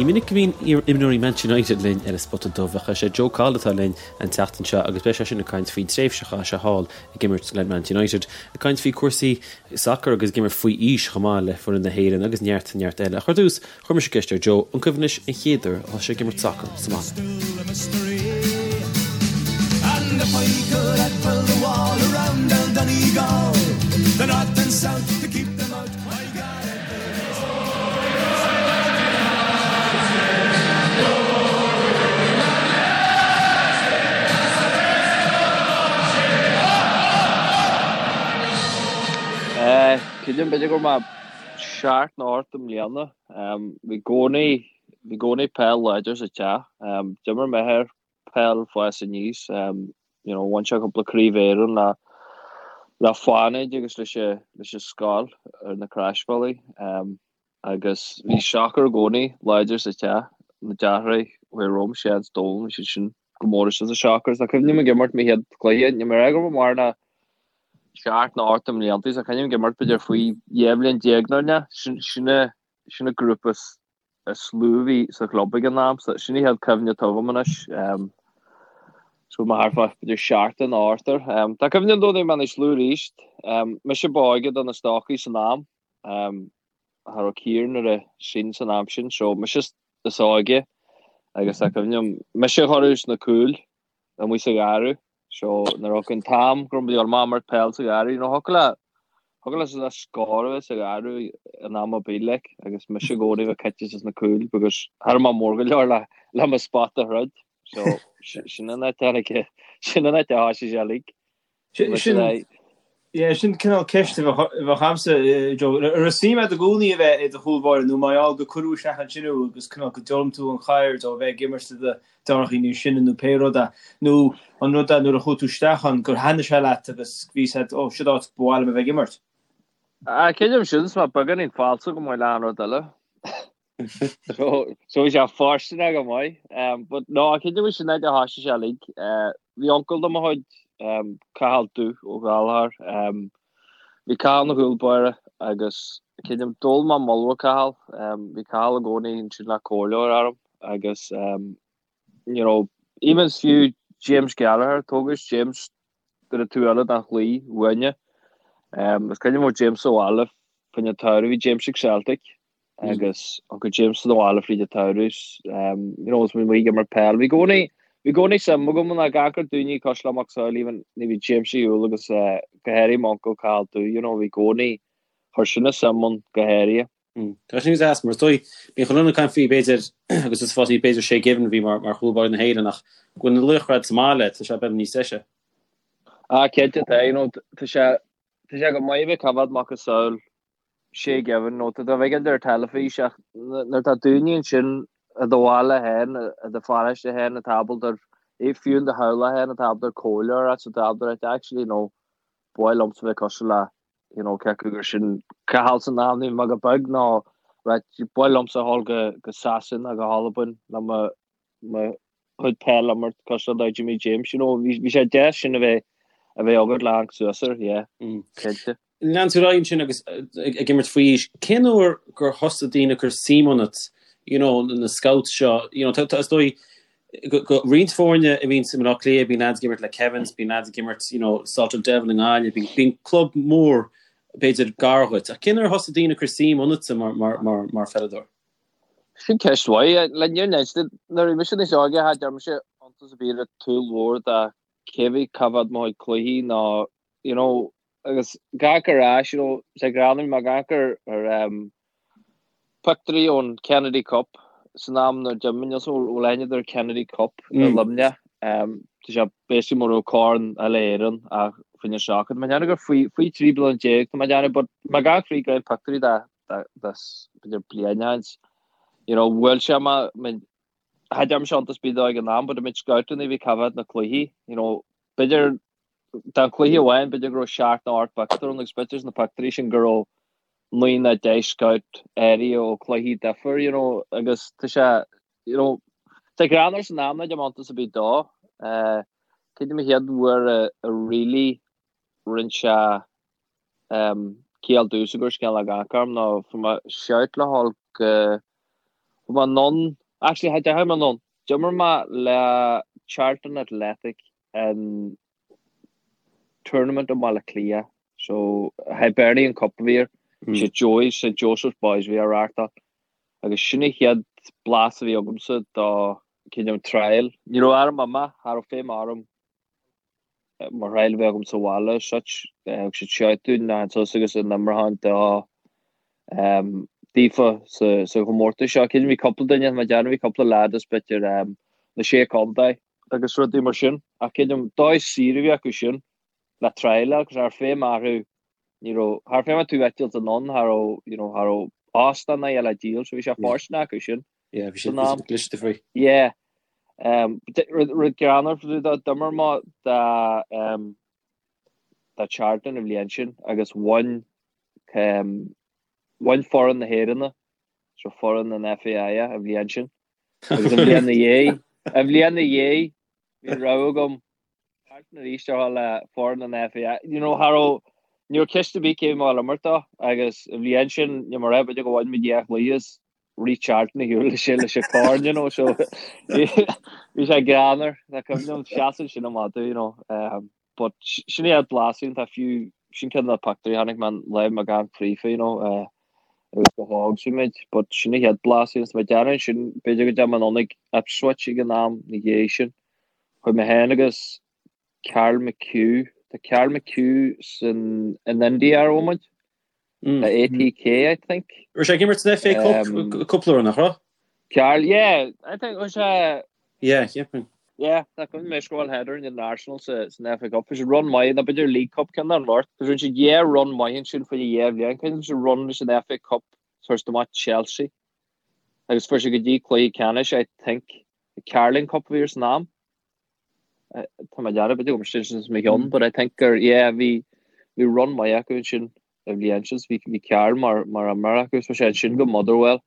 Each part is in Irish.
Ní minic go mbíonn iar-imreoirí Manchester United linn ar an Spota Dubh ach is é Joe Cahill atá linn an tseachtain seo agus beidh sé sin ag caint faoin tréimhse a chaith sé thall ag imirt le Manchester United, ag caint faoi cúrsaí sacair agus ag imirt faoi aois chomh maith le foireann na hÉireann agus neart neart eile. Ach ar dtús, chuir mise ceist ar Joe, an cuimhin leis an chéad uair a thosaigh sé ag imirt sacair sa mbaile? Creidim b'fhéidir go raibh mé seacht nó ocht i mbliana. Bhí i gcónaí bhí i gcónaí peil láidir sa teach. D'imir m'athair peil fás aníos. You know, bhain sé cúpla craobh Éireann le le Fánaid agus leis an leis an scoil ar na Croisbhealaí. Agus bhí sacar i gcónaí láidir sa teach. Na deartháirí a bhí romham, Seán 's Dónal, bhí siad sin go mór istigh sa sacar. Tá cuimhne agam ag imirt mo chéad chluiche, níl mé ag rá go raibh mé mar ná seacht nó ocht i mblianta, so cuimhním ag imirt b'fhéidir faoi 12 bhliain nó ná. Sin sin sin an grúpa is lú a bhí sa chlub ag an am, so sin an chéad cuimhne atá agam anois. So mé thart fá b'fhéidir seacht nó ocht air. Tá cuimhne agam dó nuair a bhí mé níos lú arís. Mise ba óige do na stócaigh san am. Cha raibh Ciarán ar a sin san am sin, so mise is óige agus tá cuimhne agam mise a chuireadh sna cúil amuigh sa gharradh. So nuair a thiocfadh an t-am go raibh muid ag dul amach imirt peil sa gharradh, you know, thiocfadh le thiocfadh le le scór a bheith sa gharradh in am ar bith like agus mise i gcónaí a bheith caite sna cúil because cha raibh mé mór go leor le le mo spot a throid. So sin an áit a tháinig sin an áit a thoisigh sé uilig. Sin yeah, sin cineál ceist a bheadh agamsa, Joe. An raibh suim agat i gcónaí a bheith i do chúl báire nó mar gheall gur cuireadh isteach ansin thú agus cineál go d'fhoghlaim tú an cheird ó bheith ag imirt le do deartháireacha níos sine nó pé rud é, nó an rud é nuair a chuaigh tú isteach ann gur thaitnigh sé leat agus bhí a fhios agat, ó, siod áit ba mhaith liom a bheith ag imirt? Ah, creidim sin, is mé beagáinín falsa go maith le an rud eile. So, so bhí sé fóirsteanach go maith. Um, but no, creidim sin áit a thoisigh sé uilig. Uh, bhí uncail de mo chuid, um, Cathal Dubh Ó Gallchóir. Um, bhí Cathal ina chúl báire agus creidim d'fhoghlaim mé moll ó Cathal. Um, bhí Cathal i gcónaí ansin le comhairle a orm agus um, you know, even fiú James Gallagher, tógadh James ar an taobh eile den chlaí uainne. Um, is cuimhin liom James sa bhaile fán tsamhradh, bhí James ag Celtic agus uncail James sa bhaile fríd an tsamhradh, um, you know, is muid ag imirt peil. Bhí i gcónaí bhí i gcónaí suim agam ina gach ar daoine cosúil le Mac Samhail even ní bhí James ar shiúl agus uh, go háirithe m'uncail Cathal Dubh, you know, bhí i gcónaí chuir sin a suim ann go háirithe. Tá sin deas mar is dóigh bíonn chuile dhuine ag caint faoi b'fhéidir agus is fásaí b'fhéidir Shay Given a bhí mar mar chúl báire na hÉireann ach go bhfuil na laochra sa mbaile tá sé beag níos deise. Ah, cinnte tá, you know, tá sé tá sé go maith a bheith ag coimhéad macasamhail Shay Given nó tá tú ag féachaint ar teilifís ach nuair atá daoine ansin i do bhaile féin, i do pharóiste féin atá ábalta fiú in do theaghlach féin atá ábalta comhairle a thabhairt atá ábalta actually you know ba mhaith liomsa bheith cosúil le you know cé acu gur sin Cathal san am nuair a bhí mé go beag nó right ba mhaith liomsa a dhul go go Sasana go hAlbain le mo mo chuid peil a imirt cosúil le Jimmy James you know bhí bhí sé deas sin a bheith a bheith agat le amharc suas air yeah cinnte. Lean tú ar aghaidh ansin agus ag imirt faoi aois. Cén uair gur thosaigh daoine ag cur suim ionat, you know, na scouts seo, you know, tá, is dóigh, go, go roinnt foirne a bhíonn i mBaile Átha Cliath, bíonn lads ag imirt le Kevins, bíonn lads ag imirt, you know, Salthill Devil i nGaillimh, bíonn, bíonn club mór, b'fhéidir, gar dhuit. Ach cén uair a thosaigh daoine ag cur suim ionatsa mar, mar, mar, mar pheileadóir? Sin ceist mhaith. Le níor neist, nuair a bhí mise níos óige, cha dearn mise iontas ar bith ar tsúil mhór de cé bhí cá mhéad mo chuid cluichí nó, you know, agus gach ar ais, you know, sé greannmhar mar gach ar ar um, pictiúirí ón Kennedy Cup san am nuair d'imir níl so bhfuil aithne ar Kennedy Cup i mm. Luimneach. Um, tá sé basically mar ó Corn Uile-Éireann ach faoin seachad. Má dhéanamh gur faoi faoi 13 bliana tá mé déanamh, but má gach faoi go pictiúirí da da da b'fhéidir bliain you know, bhuail sé má cha dearn mise iontas ar bith dó ag an am, but I mean scoutanna a bhí ag coimhéad na cluichí, you know, b'fhéidir Den chluiche amháin, b'fhéidir go raibh seacht nó ocht bpictiúr ann agus b'fhéidir sna pictiúirí sin go raibh naoi nó deich scout áirithe ó chluichí difir, you know, agus tá sé, you know, tá greannmhar san am nach dearn mé iontas ar bith dó. Cad é mo chéad uair a a really rinne sé um, ciall domhsa gur scéal ag amharc orm ná fuair mé shout le dhul go. Chuaigh mé anonn, actually cha deachaigh mé anonn, d'imir mé le Charlton Athletic in tournament i mBaile Átha Cliath, so Hibernian Cup a bhí air, St Joey's, St Joseph's Boys a bhí á reáchtáil, agus sin an chéad blas a bhí agamsa do cineál trial. Ní raibh orm imeacht, cha raibh feidhm orm mar thrial a bheith agam sa bhaile as such. Thug siad shout dúinn na suas agus an imreoir do daofa sa sa chomórtas seo. Cinn bhí cúpla duine, má dearna bhí cúpla leaid as b'fhéidir na sé contae agus rudaí mar sin. Ach creidim dóigh saor a bhí acu sin le trial agus cha raibh feidhm orthu ní raibh cha raibh feidhm tú eitilt anonn cha raibh you know cha raibh óstán ná le díol so bhí sé fóirsteanach acu sin. Yeah, bhí sé cliste faoi. Yeah. Um, rud greannmhar d'imir mé do um, do Charlton an bhliain sin agus bhain um, bhain foireann na hÉireann so foireann an FAI an bhliain sin. Agus an bhliain na dhiaidh, an bhliain na dhiaidh, bhí rogha agam Charlton arís ar le foireann an FAI. You know, cha raibh ní raibh ceist ar bith cé mé imirt dó agus an bhliain sin ní mar b'fhéidir go bhain muid dhá chluiche is rith Charlton ar shiúl leis leis an corn, you know, so bhí sé greannmhar, tá cuimhne liom seasamh sin amach you know, um, but sin é blas tá fiú sin ceann de na pictiúirí a chonaic mé an lá mo gan fríofa, you know, uh, agus go hóg sin muid, but sin é chéad blas is mé dearna sin b'fhéidir go dtéim anonn ag Ipswich ag an am na dhiaidh sin. Chuaigh mé féin agus Carl McHugh, tá Carl McHugh san in India ar mhóimint. Le ATK, I think. Raibh sé ag imirt san FA Cup cúpla uair, nach raibh? Carl, yeah, I think was sé. Yeah, cheapfainn. Yeah, tá cuimhne mé scóráil header in Arsenal sa san FA Cup. Bhí sé run maith, nó b'fhéidir League Cup ceann den bheirt. Rinne siad dhá run maith ansin faoi dhá bhliain. Cuimhne siad run leis an FA Cup fuair siad amach Chelsea. Agus fuair siad go dtí cluiche ceannais, I think, the Carling Cup a bhí air san am. Tá mé dearmad b'fhéidir go sin sin mo cheann, but I think gur yeah bhí bhí run maith acu ansin an bhliain sin bhí bhí Carl mar mar imreoir acu so sé ansin go Motherwell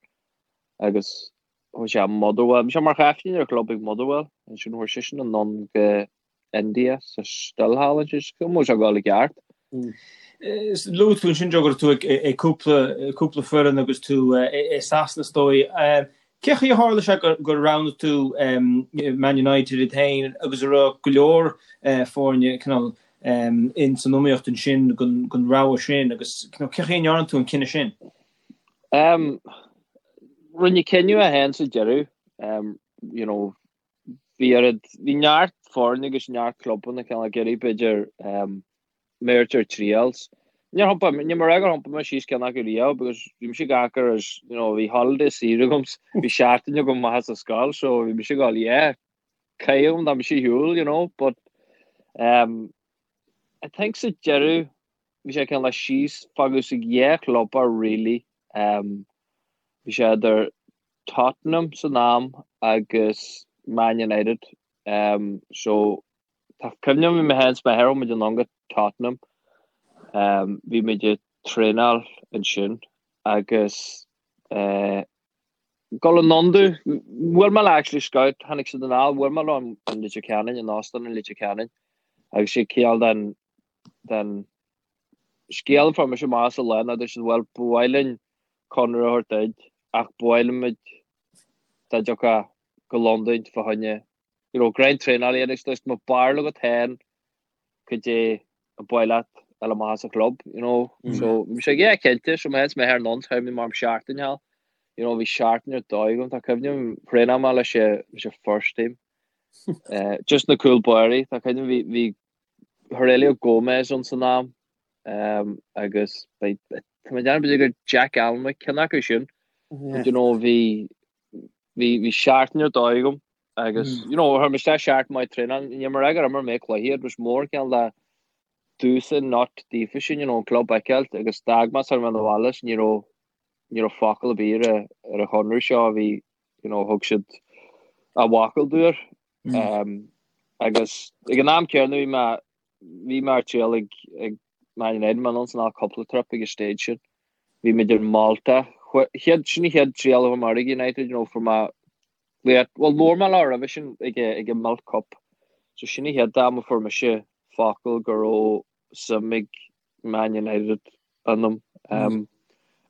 agus chuaigh sé Motherwell bhí sé mar chaiftín ar chlub ag Motherwell ansin chuaigh seisean anonn go India sa still thall ansin so go sé ag dul i gceart. Luaigh tú ansin Joe go raibh tú ag cúpla cúpla foireann agus tú i Sasana is dóigh. Cé chaoi a tharla sé gur roghnaigh tú Man United iad féin agus an raibh go leor foirne cineál in san iomaíocht ansin don rogha sin agus cé chaoi a ndearna tú an cinneadh sin? Rinne cinneadh é féin sa deireadh, you know, bhí oiread, bhí neart foirne agus neart clubanna cineál ag iarraidh b'fhéidir mé a thabhairt ar trials. Níor thiompaigh, ní mar gur thiompaigh mé síos ceann acu riamh because bhí mise ag amharc air as, you know, bhí holiday saor agam, bhí seachtain agam amach as an scoil so bhí mise ag dul yeah, caithfidh tá mise ar shiúl, you know, but um, I think sa deireadh bhí sé cineál síos fágadh sa dhá chlub really um, bhí sé idir Tottenham san am agus Man United um, so Tá cuimhne agam bhí mé féin 's m'athair chuaigh muid anonn go Tottenham. Bhí muid ag traenáil ansin agus dul anonn domh, bhuail mé le actually scout, tháinig siad anall, bhuail mé leo in Leitir Ceanainn, in óstán in Leitir Ceanainn agus sé cineál den den scéal a fuair mise amach sa lá ná dúirt siad bhuel ba mhaith linn conradh a thabhairt duit ach ba mhaith linn muid dá dtiocfá go Londain fá choinne you know, grind traenáil a dhéanamh agus má b'fhearr leat féin cad é a ba mhaith leat a fháil amach as an chlub, you know. Mm. So bhí sé yeah, cinnte, so mé féin 's m'athair anonn, chuaigh mé mar seachtain thall. You know, bhí seachtain ar dóigh agam, tá cuimhne agam thraenáil mé leis an leis an first team. Uh, just na cúl báirí, tá cuimhne bhí bhí Heurelho Gomes ann san am um, agus tá mé ag déanamh b'fhéidir gur Jack Alnwick ceann acu sin. Yeah. You know, bhí bhí bhí seachtain ar dóigh agam agus you know chuir mé isteach seachtain maith traenáil ní mar gur imir mé cluiche it was more cineál de dúsa not daofa sin you know an club a fheiceáilt agus d'fhág mé sar mé na bhaile ní raibh ní raibh focal ar bith ar ar an chonradh seo a bhí you know thug siad a bhfocal dúinn um, agus ag an am céanna bhí mé bhí mé ar triail ag ag Man United mé anonn san á cúpla trip ag an stage sin bhí muid ar Malta chéad sin an chéad triail a bhí mar ag United you know fuair mé Bhuel, labhair mé leo roimhe sin ag ag an Milk Cup. So sin an chéad am a fuair mise focal go raibh suim ag Man United ionam. Um,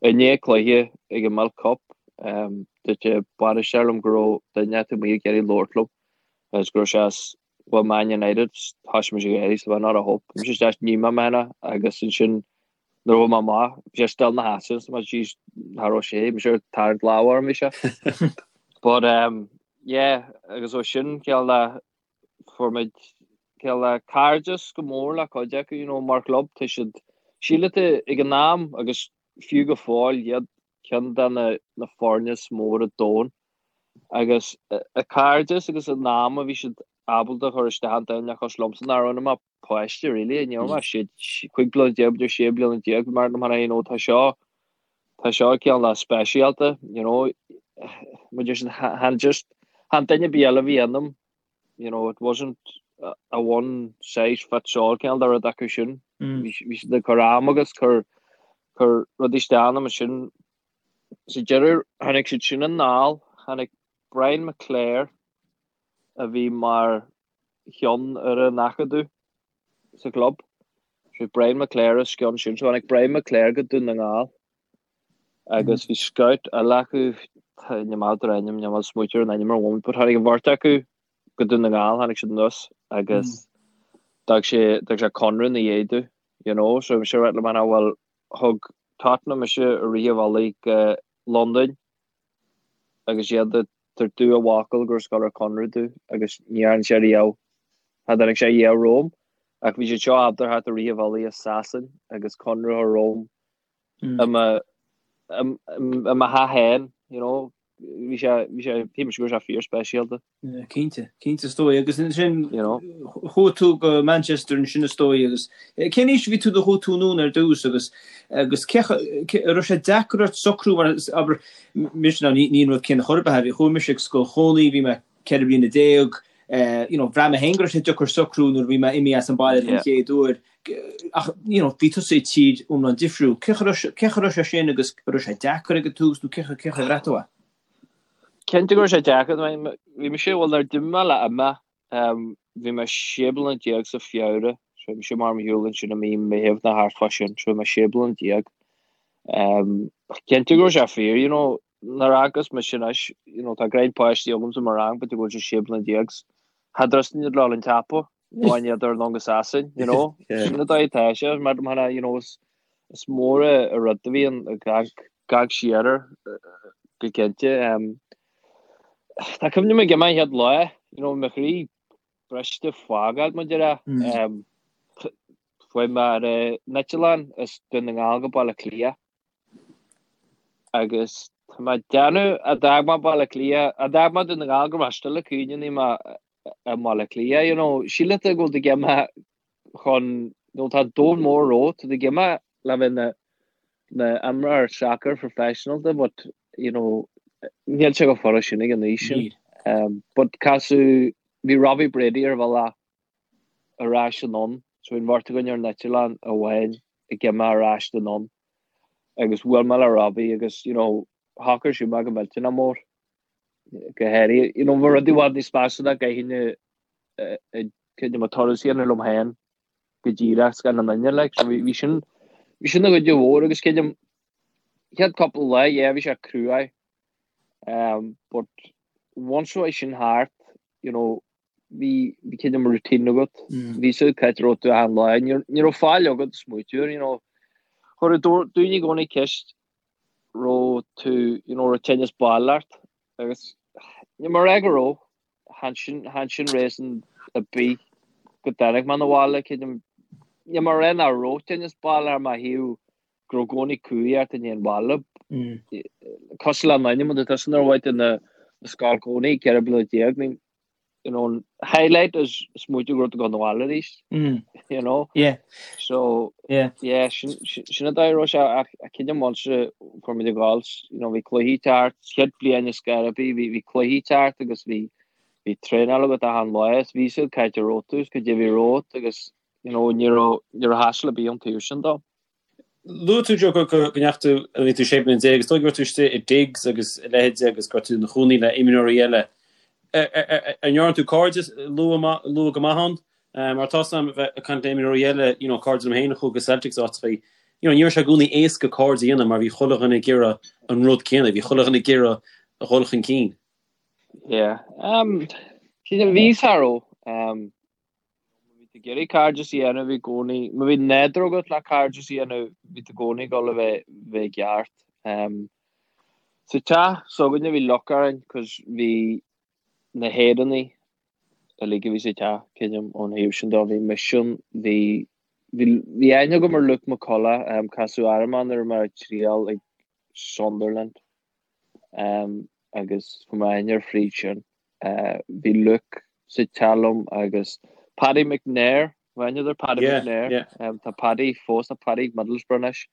I ndiaidh cluiche ag an Milk Cup, um, Dúirt an bainisteoir liom go raibh duine acu amuigh ag iarraidh labhairt liom agus go raibh sé as well Man United thosaigh mise ag gáirí so not a hope. Bhí sé isteach ní mé mena agus ansin nuair a bhí mé amach bhí sé still ina sheasamh so jeez cha raibh sé bhí sé ag tarraingt lámh orm bhí sé. But um, yeah agus ó sin cineál de fuair muid cineál de cairdeas go mór le cuid acu you know mar chlub tá siad sílim ag an am agus fiú go fóill iad ceann de na foirne is mó ar domhan agus a cairdeas agus an am a bhí siad ábalta a chur isteach iontu nach liomsa nach raibh mé páiste really ní raibh mé sé 15 bliana b'fhéidir 16 bliana bhí mar mar you know tá seo tá seo cineál de speisialta you know muid chan just chan duine ar bith eile a bhí ionam you know, it wasn't a one size fits all cineál de rud acu sin. Bhí siad ag cur am agus cur cur rudaí isteach ionam ansin. Sa deireadh tháinig siad sin anall, tháinig Brian McClair a bhí mar cheann ar an acadamh sa chlub. So Brian McClair os cionn sin, so tháinig Brian McClair go Dún na nGall. Agus bhí scout eile acu, níl mé ábalta ar ainm, níl mé ábalta smaoitiú ar an ainm ar an mhóimint, but tháinig an bheirt acu go Dún na nGall, tháinig siad anuas agus d'fhág sé, d'fhág sé conradh ina dhiaidh domh, you know, so bhí sé ag rá liom, bhuel, thug Tottenham mise i rith an bhealaigh go Londain agus iad ag tabhairt domh a bhfocal gur ag gabháil ar conradh domh agus ní dhearna sé riamh, cha dtáinig sé riamh romham ach bhí siad seo ábalta a theacht i rith an bhealaigh i Sasain agus conradh a chur romham i mo i mo theach féin, you know, bhí sé, bhí sé, bhí sé go raibh sé fíorspeisialta. Yeah, cinnte, cinnte is dóigh. Agus ansin, you know, chuaigh tú go Manchester ansin is dóigh agus cén aois a bhí tú nuair a chuaigh tú anonn ar dtús agus agus cé an raibh sé deacair ort socrú mar abair mise ná ní ní an rud céanna chor ar bith, bhí chuaigh mise ag scoil Chónaí, bhí mé 14 bliana, you know, bhraith mé féin go raibh sé deacair socrú nuair a bhí mé imithe as an baile den chéad uair. Ach, you know, bhí tusa i tír iomlán difriúil. Cén chaoi a raibh sé sin agus an raibh sé deacair ag an tús nó cén chaoi a bhraith tú é? Cinnte go raibh sé deacair. Bhí mise, bhuel, nuair a d'imigh mé le imeacht, bhí mé 16 bliana sa Feabhra, so bhí mise mar mo shiúl ansin i mí Meitheamh nó thart fá sin, so bhí mé 16 bliana. Cinnte go raibh sé fíor, you know, nuair a fhéachas mise anois, you know, tá greim páistí agamsa mo rang, b'fhéidir go bhfuil sé 16 bliana, cha dtrusting iad le dhul an tsiopa. Nó an iad ar long assassin, you know? Sin an dóigh atá sé, mar mar you know, is is mór an rud a bhíonn ag amharc siar air go cinnte. Um, tá cuimhne agam ag imeacht an chéad lá, you know, mo chroí briste fágáil mar a déarfá. Um, Chuaigh mé ar an eitleán as Dún na nGall go Baile Átha Cliath agus tá mé ag déanamh a d'fhág mé Baile Átha Cliath, a d'fhág mé Dún na Gall go raibh mé still ag cuimhneamh ní mé i mBaile Átha Cliath, you know, síleann tú go bhfuil tú ag imeacht chun, you know, tá domhan mór romhat, tá tú ag imeacht le bheith ina ina imreoir sacair professional but, you know, níl sé chomh furast sin ag an aois sin. Um, but casadh, bhí Robbie Brady ar bhealach ar ais anonn, so bhí an bheirt againn ar an eitleán amháin ag imeacht ar ais anonn agus bhuail mé le Robbie agus, you know, shocair sé mé go millteanach mór. go háirithe, you know, bhí rudaí i bhfad níos measa ná gcaithfinn cuid de mo turas a dhéanamh liom féin go díreach gan aon duine, like, so bhí sin, bhí sin ina chuid mhór agus creidim, chéad cúpla lá, yeah, bhí sé cruaidh, um, but once a bhí sin thart, you know, bhí, bhí creidim routine agat, bhí a fhios agat cá háit a raibh tú achan lá, ní, ní raibh faill agat smaoitiú air, you know, chuir daoine i gcónaí ceist raibh tú, you know, raibh tinneas baile ort agus níl mé ag rá go raibh, chan sin, chan sin reason ar bith go dtáinig mé 'na bhaile, creidim, níl mé ag rá nach raibh tinneas baile ar mo thaobh go raibh i gcónaí cumhaidh ort i ndiaidh an bhaile. Cosúil le m'ainm, tá tusa nuair a bhain tú na scoil cónaí, 14 bliana, I mean, you know, an highlight is smaoitiú go raibh tú ag dul 'na bhaile arís, you know. Yeah. So, yeah, yeah sin, sin an dóigh a raibh sé ach creidim once a fuair muid ag gabháil, you know, bhí cluichí thart, chéad bhliain i Scaraby, bhí, bhí cluichí thart agus bhí, bhí traenáil agat achan lá is bhí a fhios agat cá háit a raibh tú is cad é a bhí romhat agus, you know, ní raibh, ní raibh hassle ar bith ón taobh sin dó. Luaigh tú, Joe, go ndeachaigh tú, nuair a bhí tú 16 bliana, is dóigh go raibh tú istigh i digs agus a leithéid agus go raibh tú i do chónaí le imreoirí eile. An ndearna tú cairde luath luath go maith ann? Mar tá 'fhios a'm bheith ag caint le imreoirí eile, you know, cairde liom féin a chuaigh go Celtic is áiteachaí, you know, ní raibh sé i gcónaí éasca cairde a dhéanamh mar bhí chuile dhuine ag iarraidh an rud céanna, bhí chuile dhuine ag iarraidh a dhul chun cinn. Yeah. Um, bhí cha raibh. Um, bhí tú ag iarraidh cairdeas a dhéanamh i gcónaí. Má bhí nádúr agat le cairdeas a dhéanamh, bhí tú i gcónaí ag dul a bheith bheith i gceart. Um, sa teach s'againne bhí luck orainn, cos bhí na hÉireannaigh uilig a bhí sa teach, creidim, ón thaobh sin de. Bhí mise ann, bhí bhí bhí aithne agam ar Luke McCullough, um, casadh orm é nuair a bhí mé ag triail ag Sunderland. Um, agus fuair mé aithne air fríd sin. Uh, bhí Luke sa teach liom agus Paddy McNair, bhfuil aithne ar Paddy Yeah, McNair. yeah. Um, tá Paddy fós, tá Paddy ag Middlesbrough anois.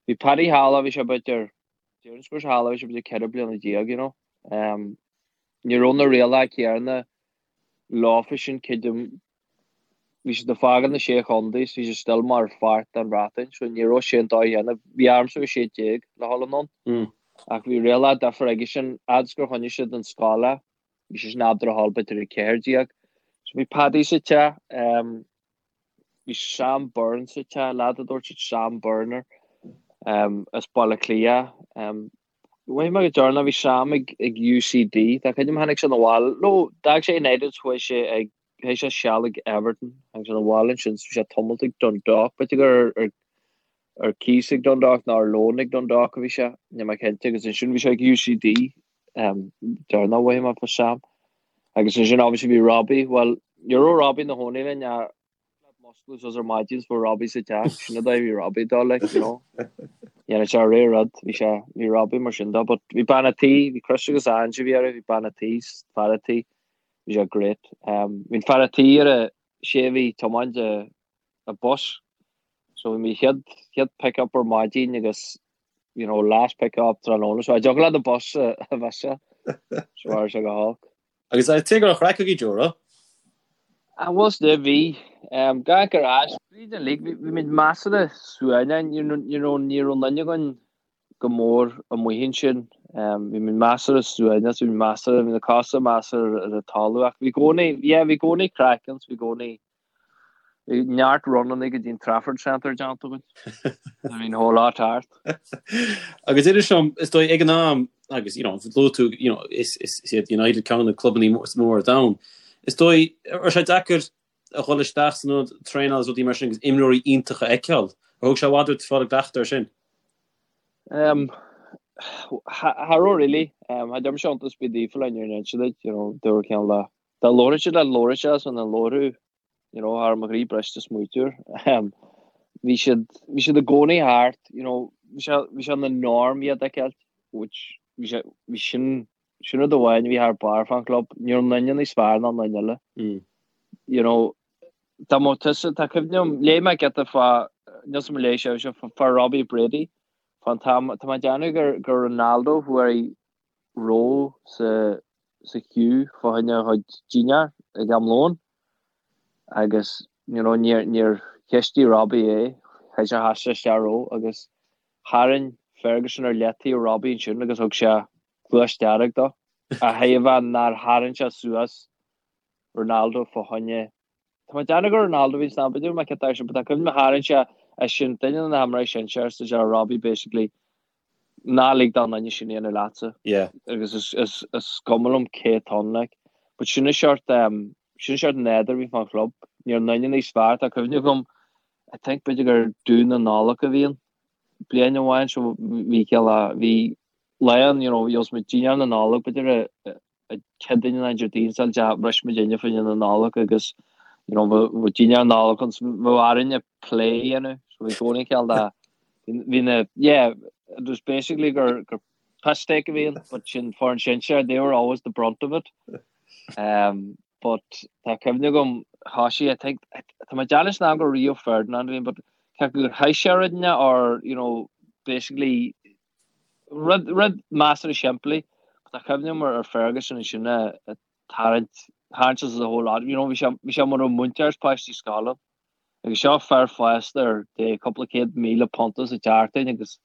Bhí Paddy thall, bhí sé b'fhéidir déarfainn go raibh sé thall, bhí sé b'fhéidir 14 bliana, you know. Um, ní raibh na rialacha céanna leofa sin, creidim, Bhí siad ag fágáil na Sé Chontae is bhí siad still mar pháirt den Bhreatain so ní raibh sé an dóigh chéanna. Bhí ormsa a bheith 16 le dhul anonn ach bhí rialacha difear aige sin fhad is gur choinnigh siad an scoil é bhí sé sin ábalta a dhul b'fhéidir ag 14. So bhí Paddy sa teach, bhí Sam Byrne sa teach, leaid a dúirt siad Sam Byrne air, as Baile Átha Cliath. Mhothaigh mé go deireanach bhí Sam ag UCD, tá cuimhne agam tháinig sé 'na bhaile, no d'fhág sé United chuaigh sé ag Chaith sé seal ag Everton agus 'na bhaile ansin bhí sé tamalt ag Dundalk, b'fhéidir gur ar ar cíos ag Dundalk nó ar loan ag Dundalk a bhí sé, níl mé cinnte, agus ansin bhí sé ag UCD deireanach mhothaigh mé fá Sam. Agus ansin obviously bhí Robbie, bhuel ní raibh Robbie ina chónaí linn ach musclú suas ar maidin is bhí Robbie sa teach, sin an dóigh a bhí Robbie ag dul like, you know. Dhéanadh sé ré rud, bhí sé, bhí Robbie mar sin dó, but bhí bean a' tí, bhí Chris agus Ange a bhí orthu, bhí bean a' tí, fear a' tí, Bhí sé great. Bhí an fear a' tí ar a sé a bhí ag tiomáint an bus. So bhí mé chéad chéad pick up ar maidin agus you know last pick up tráthnóna. So cha dtiocfadh leat an bus a mhissáil. So bhí sé go holc. Agus tuige go raibh craic agaibh Joe, raibh? Ah was there bhí. Gach ar ais tríd an league bhí bhí muid measartha suaimhneach you know you know ní raibh aon duine againn go mór amuigh ansin. Bhí muid measartha suaimhneach, bhí muid measartha, bhí na cosa measartha ar an talamh ach bhí i gcónaí, yeah, bhí i gcónaí craic ann, bhí i gcónaí, bhí neart runannaí go dtí an Trafford Centre déanta againn. Bhí an whole lot thart. Agus idir seo, is dóigh ag an am, agus you know, luaigh tú, you know, is, is, is iad United ceann de na clubannaí is mó ar domhan. Is dóigh, raibh sé deacair a dhul isteach san ionad traenála agus rudaí mar sin agus imreoirí iontacha a fheiceáil. Ar thóg sé i bhfad ort fáil i gcleachtadh air sin? Um, cha raibh really. Um, cha dtearn mise iontas ar bith daofa le níor inse duit, you know, dúirt ceann le dá labhródh siad le labhródh sé san an labhrú, you know, thar mo chroí briste smaoitiúr. Um, bhí siad, bhí siad i gcónaí thart, you know, bhí sé, bhí sé ina norm iad a fheiceáil, which bhí sé, bhí sin Sin rud amháin a bhí thar barr fán chlub, ní raibh aon duine níos fearr ná an duine eile. You know, dá mbeadh tusa, tá cuimhne agam, léigh mé giota fá, níl 's agam ar léigh sibhse, fá Robbie Brady, fán t-am, tá mé ag déanamh gur, gur Ronaldo fuair ró sa, sa queue fá choinne a chuid dinnéar ag am lóin agus, you know, níor, níor cheistigh Robbie é, chaith sé sheas sé isteach ró agus tharraing Ferguson ar leataobh Robbie ansin agus thug sé cluais dearg dó, a thaobh nár tharraing sé suas Ronaldo fá choinne. Tá mé ag déanamh gur Ronaldo a bhí san am, b'fhéidir mé ceart sin, but tá cuimhne tharraing sé é sin, duine de na himreoirí sinsear, is é Robbie basically, ná lig don duine sin a dhéanamh leatsa. Yeah. Agus is, is, is cuma liom cé atá ann, like. But sin an seort, um, sin an seort nádúr a bhí fán chlub. Ní raibh aon duine níos fearr, tá cuimhne agam, I think b'fhéidir gur Dún na Nollag a bhí ann, bliain amháin, so bhí céile, bhí lá ann, you know, gheobhas muid dinnéar na Nollag, b'fhéidir a Céadaoin nó Déardaoin sa dea bhris muid inne fá choinne na Nollag agus you know bheadh dinnéar na Nollag ann so bheadh orainne plé a dhéanamh so bhí i gcónaí cineál de bhí na yeah it was basically gur gur piss take a bhí ann but sin foireann sinsear they were always the brunt of it um but tá cuimhne agam thosaigh I think tá mé ag déanamh san am gur Rio Ferdinand a bhí ann but ceapaim gur chaith sé rud inteacht or you know basically Rud, rud measartha simplí. Tá cuimhne agam ar Ferguson ansin ag tarraingt, tharraingt as the whole lot. You know, bhí sé, bhí sé mar mhúinteoir is páistí scoile. Agus seo fear fásta ar dé cúpla 100,000 punt sa tseachtain agus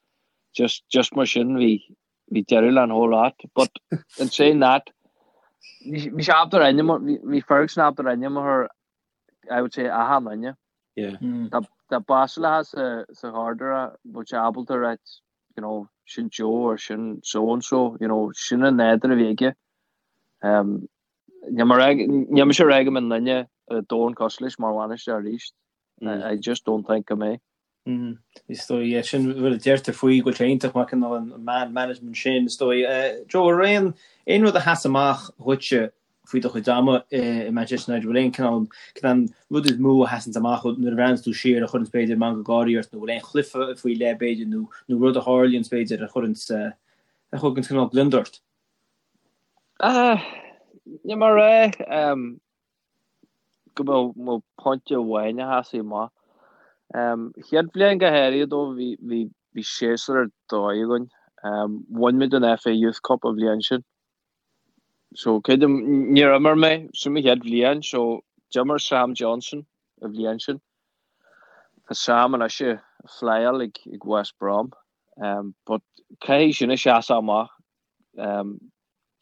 just, just mar sin bhí, bhí deireadh le an whole lot. But in saying that, bhí, bhí sé ábalta ar ainm, bhí, bhí Ferguson ábalta ar ainm a chur, I would say, achan duine. Yeah. Dá, dá b'fhásúlacha sa, sa ghairdire, bheadh sé ábalta a ráit. you know, sin Joe or sin so and so, you know, sin an nádúr a bhí aige. Um, Níl mise ag rá go mbeidh duine ar domhan cosúil leis mar bhainisteoir arís. I just don't think go mbeidh. Is dóigh, yeah, sin rud a deirtear faoi go bhfuil sé iontach maith cineál an man management sin, is dóigh. Joe, an raibh aon aon rud a sheas amach dhuitse faoi do chuid ama i Manchester United, bhfuil aon cineál cineál rud is mó a sheasanns amach nuair a bhreathnaíonns tú siar a chuireanns b'fhéidir meangadh gáirí ort nó bhfuil aon chluiche faoi leith b'fhéidir nó nó rud a tharlaíonns b'fhéidir a chuireanns a thuganns cineál gliondar ort? Níl mé ag rá go mbeadh pointe amháin a sheasfaidh amach. Chéad bhliain go háirithe dó bhí bhí séasúr ar dóigh againn. Bhain muid an FA Youth Cup an bhliain sin. So creidim níor imir mé sin mo chéad bhliain so d'imir Sam Johnstone an bhliain sin. Tá Sam anois ag flyáil ag West Brom. But caithfidh sin a sheasamh amach.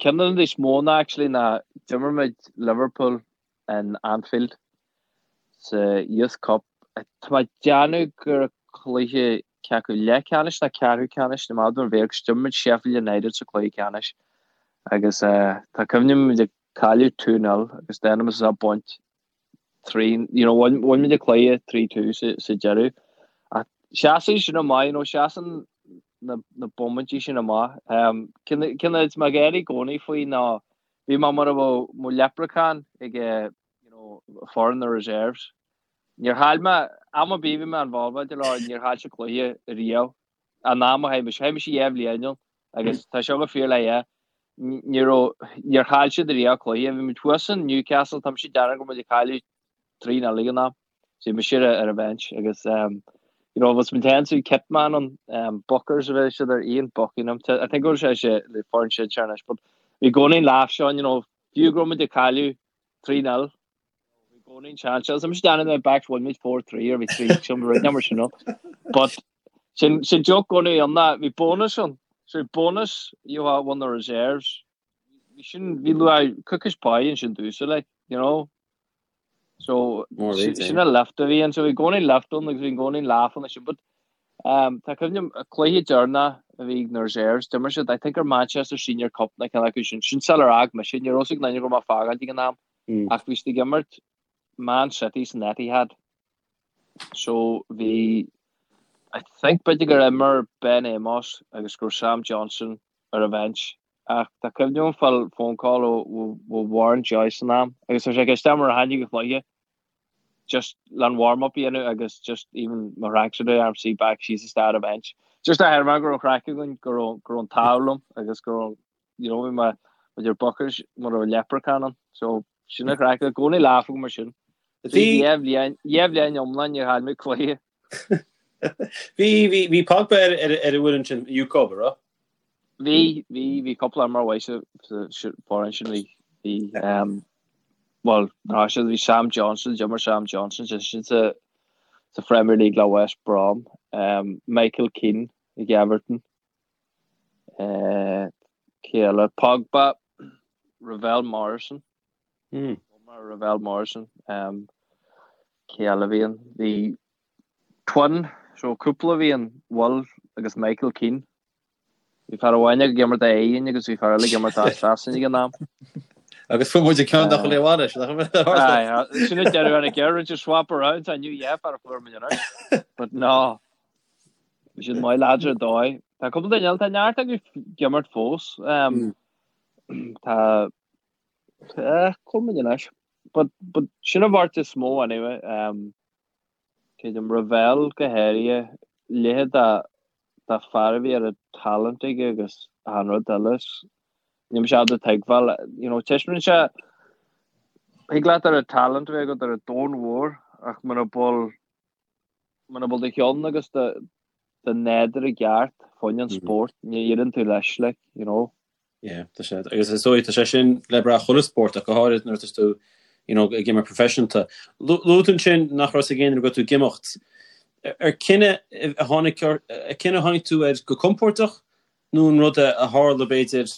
Ceann de na rudaí is mó ná actually ná d'imir muid Liverpool in Anfield sa Youth Cup. Tá mé ag déanamh gur cluiche cé acu leathcheannais nó ceathrú ceannais ní maith liom bheith agus d'imir muid Sheffield United sa cluiche ceannais agus tá cuimhne agam muid ag cailleadh 2-0 agus déanaim is a baint 3, you know, bhain muid an cluiche 3-2 sa deireadh. Ach seasann sin amach, you know, seasann na, na bomaintí sin amach. Um, Ceann is mé ag gáire i gcónaí faoi ná bhí mé mar a bheadh mo leprechaun ag, you know, foireann na reserves. Níor chaill mé, am ar bith bhí mé involved leo, níor chaill siad cluiche riamh. An am a chaith mise, chaith mise 2 bhliain ann agus tá seo go fíor le é. Ní raibh, níor chaill siad riamh cluiche. Bhí muid thuas in Newcastle, tá mise ag déanamh go raibh muid ag cailleadh 3-0 ag an am. So bhí mise ar ar an bhench agus um, you know, was muid féin so kit man an um, Buckers a bhí siad ar Ian Buckingham. I think go raibh sé sé le foireann sinsear anois, but bhí i gcónaí an laugh seo, you know, fiú go raibh muid ag cailleadh 3-0, Bhí i gcónaí an seans seo. Tá mise ag déanamh na backs bhain muid 4-3 or bhí 3 sin rud number sin ann. But sin sin joke i gcónaí ann ná bhí bonus ann. So bhí bonus you have won the reserves. Bhí sin bhí luath cookies pie ansin dúsa like, you know. So More sin than sin a lift a bhí ann. So bhí i gcónaí lift ann agus bhí i gcónaí laugh ann sin. But um, tá cuimhne agam cluiche deireanach a bhí ag na reserves. D'imir siad I think ar Manchester Senior Cup na ceann acu sin. Sin sular fhág mise. Ní raibh a fhios ag aon duine go raibh mé ag fágáint ag an am. Ach bhí siad ag imirt Man City san Etihad. So bhí I think b'fhéidir gur imir Ben Amos agus go raibh Sam Johnstone ar an bhench. Ach tá cuimhne agam fáil phone call ó ó Warren Joyce san am agus tá sé ag ceist orm ar tháinig an chluiche just le an warm up a dhéanamh agus just even mo thracksuit a arm back síos isteach ar an bench. Just a thairfeadh go raibh craic againn go raibh go raibh an t-ádh liom agus go raibh you know, bhí mé idir Buckers mar a bheadh leprechaun ann. So sin an chraic, i gcónaí laugh agam mar sin. Bhí 2 bhliain, 2 bhliain iomlán níor chaill mé cluiche. Bhí, bhí, bhí Pogba ar, ar, ar an bhfoireann sin, Youth Cup, an raibh? Bhí, bhí, bhí cúpla imreoir mhaith sa, sa, sa foireann sin, bhí, bhí, um, well, ná siad, bhí Sam Johnstone, d'imir Sam Johnstone, sin sin sa, sa Premier League le West Brom, um, Michael Keane ag Everton, Cé eile? Pogba, Ravel Morrison. Ravel Morrison. Cé eile a bhí ann? Bhí twin, so cúpla a bhí ann, Will agus Michael Keane. Bhí fear amháin ag imirt do Éirinn agus bhí fear eile ag imirt do Sasana ag an am. Agus fuair muid ceann dá chuile bhaile, sin Sin an deireadh ar an gceird, just swap around, I knew yeah, fear a fuair muid anois. But no, Bhí siad maith lads ar dóigh. Tá cúpla duine eile, tá neart acu ag imirt fós. Tá cúpla muid anois. But, but sin an bheirt is mó anyway. Um, Creidim Ravel go háirithe, leithéid de, de fear a bhí ar an talent aige agus an rud eile. Níl mise ábalta tuigbheáil, you know, taispeánann sé, thig leat ar an talent a bheith agat ar an domhan mhór ach muna bhfuil Muna bhfuil do cheann agus do nádúr i gceart fá choinne an spórt, ní éiríonn tú leis, like, you know. Yeah, tá sé, agus is dóigh, tá sé sin le brath chuile spórt ach go háirid nuair atá tú, you know, ag imirt professionalta. Luaigh tú ansin nach raibh a fhios ag éinne go raibh tú ag imeacht. Ar cinneadh a tháinig, ar cinneadh a tháinig tú air go compordach nó an rud a tharla b'fhéidir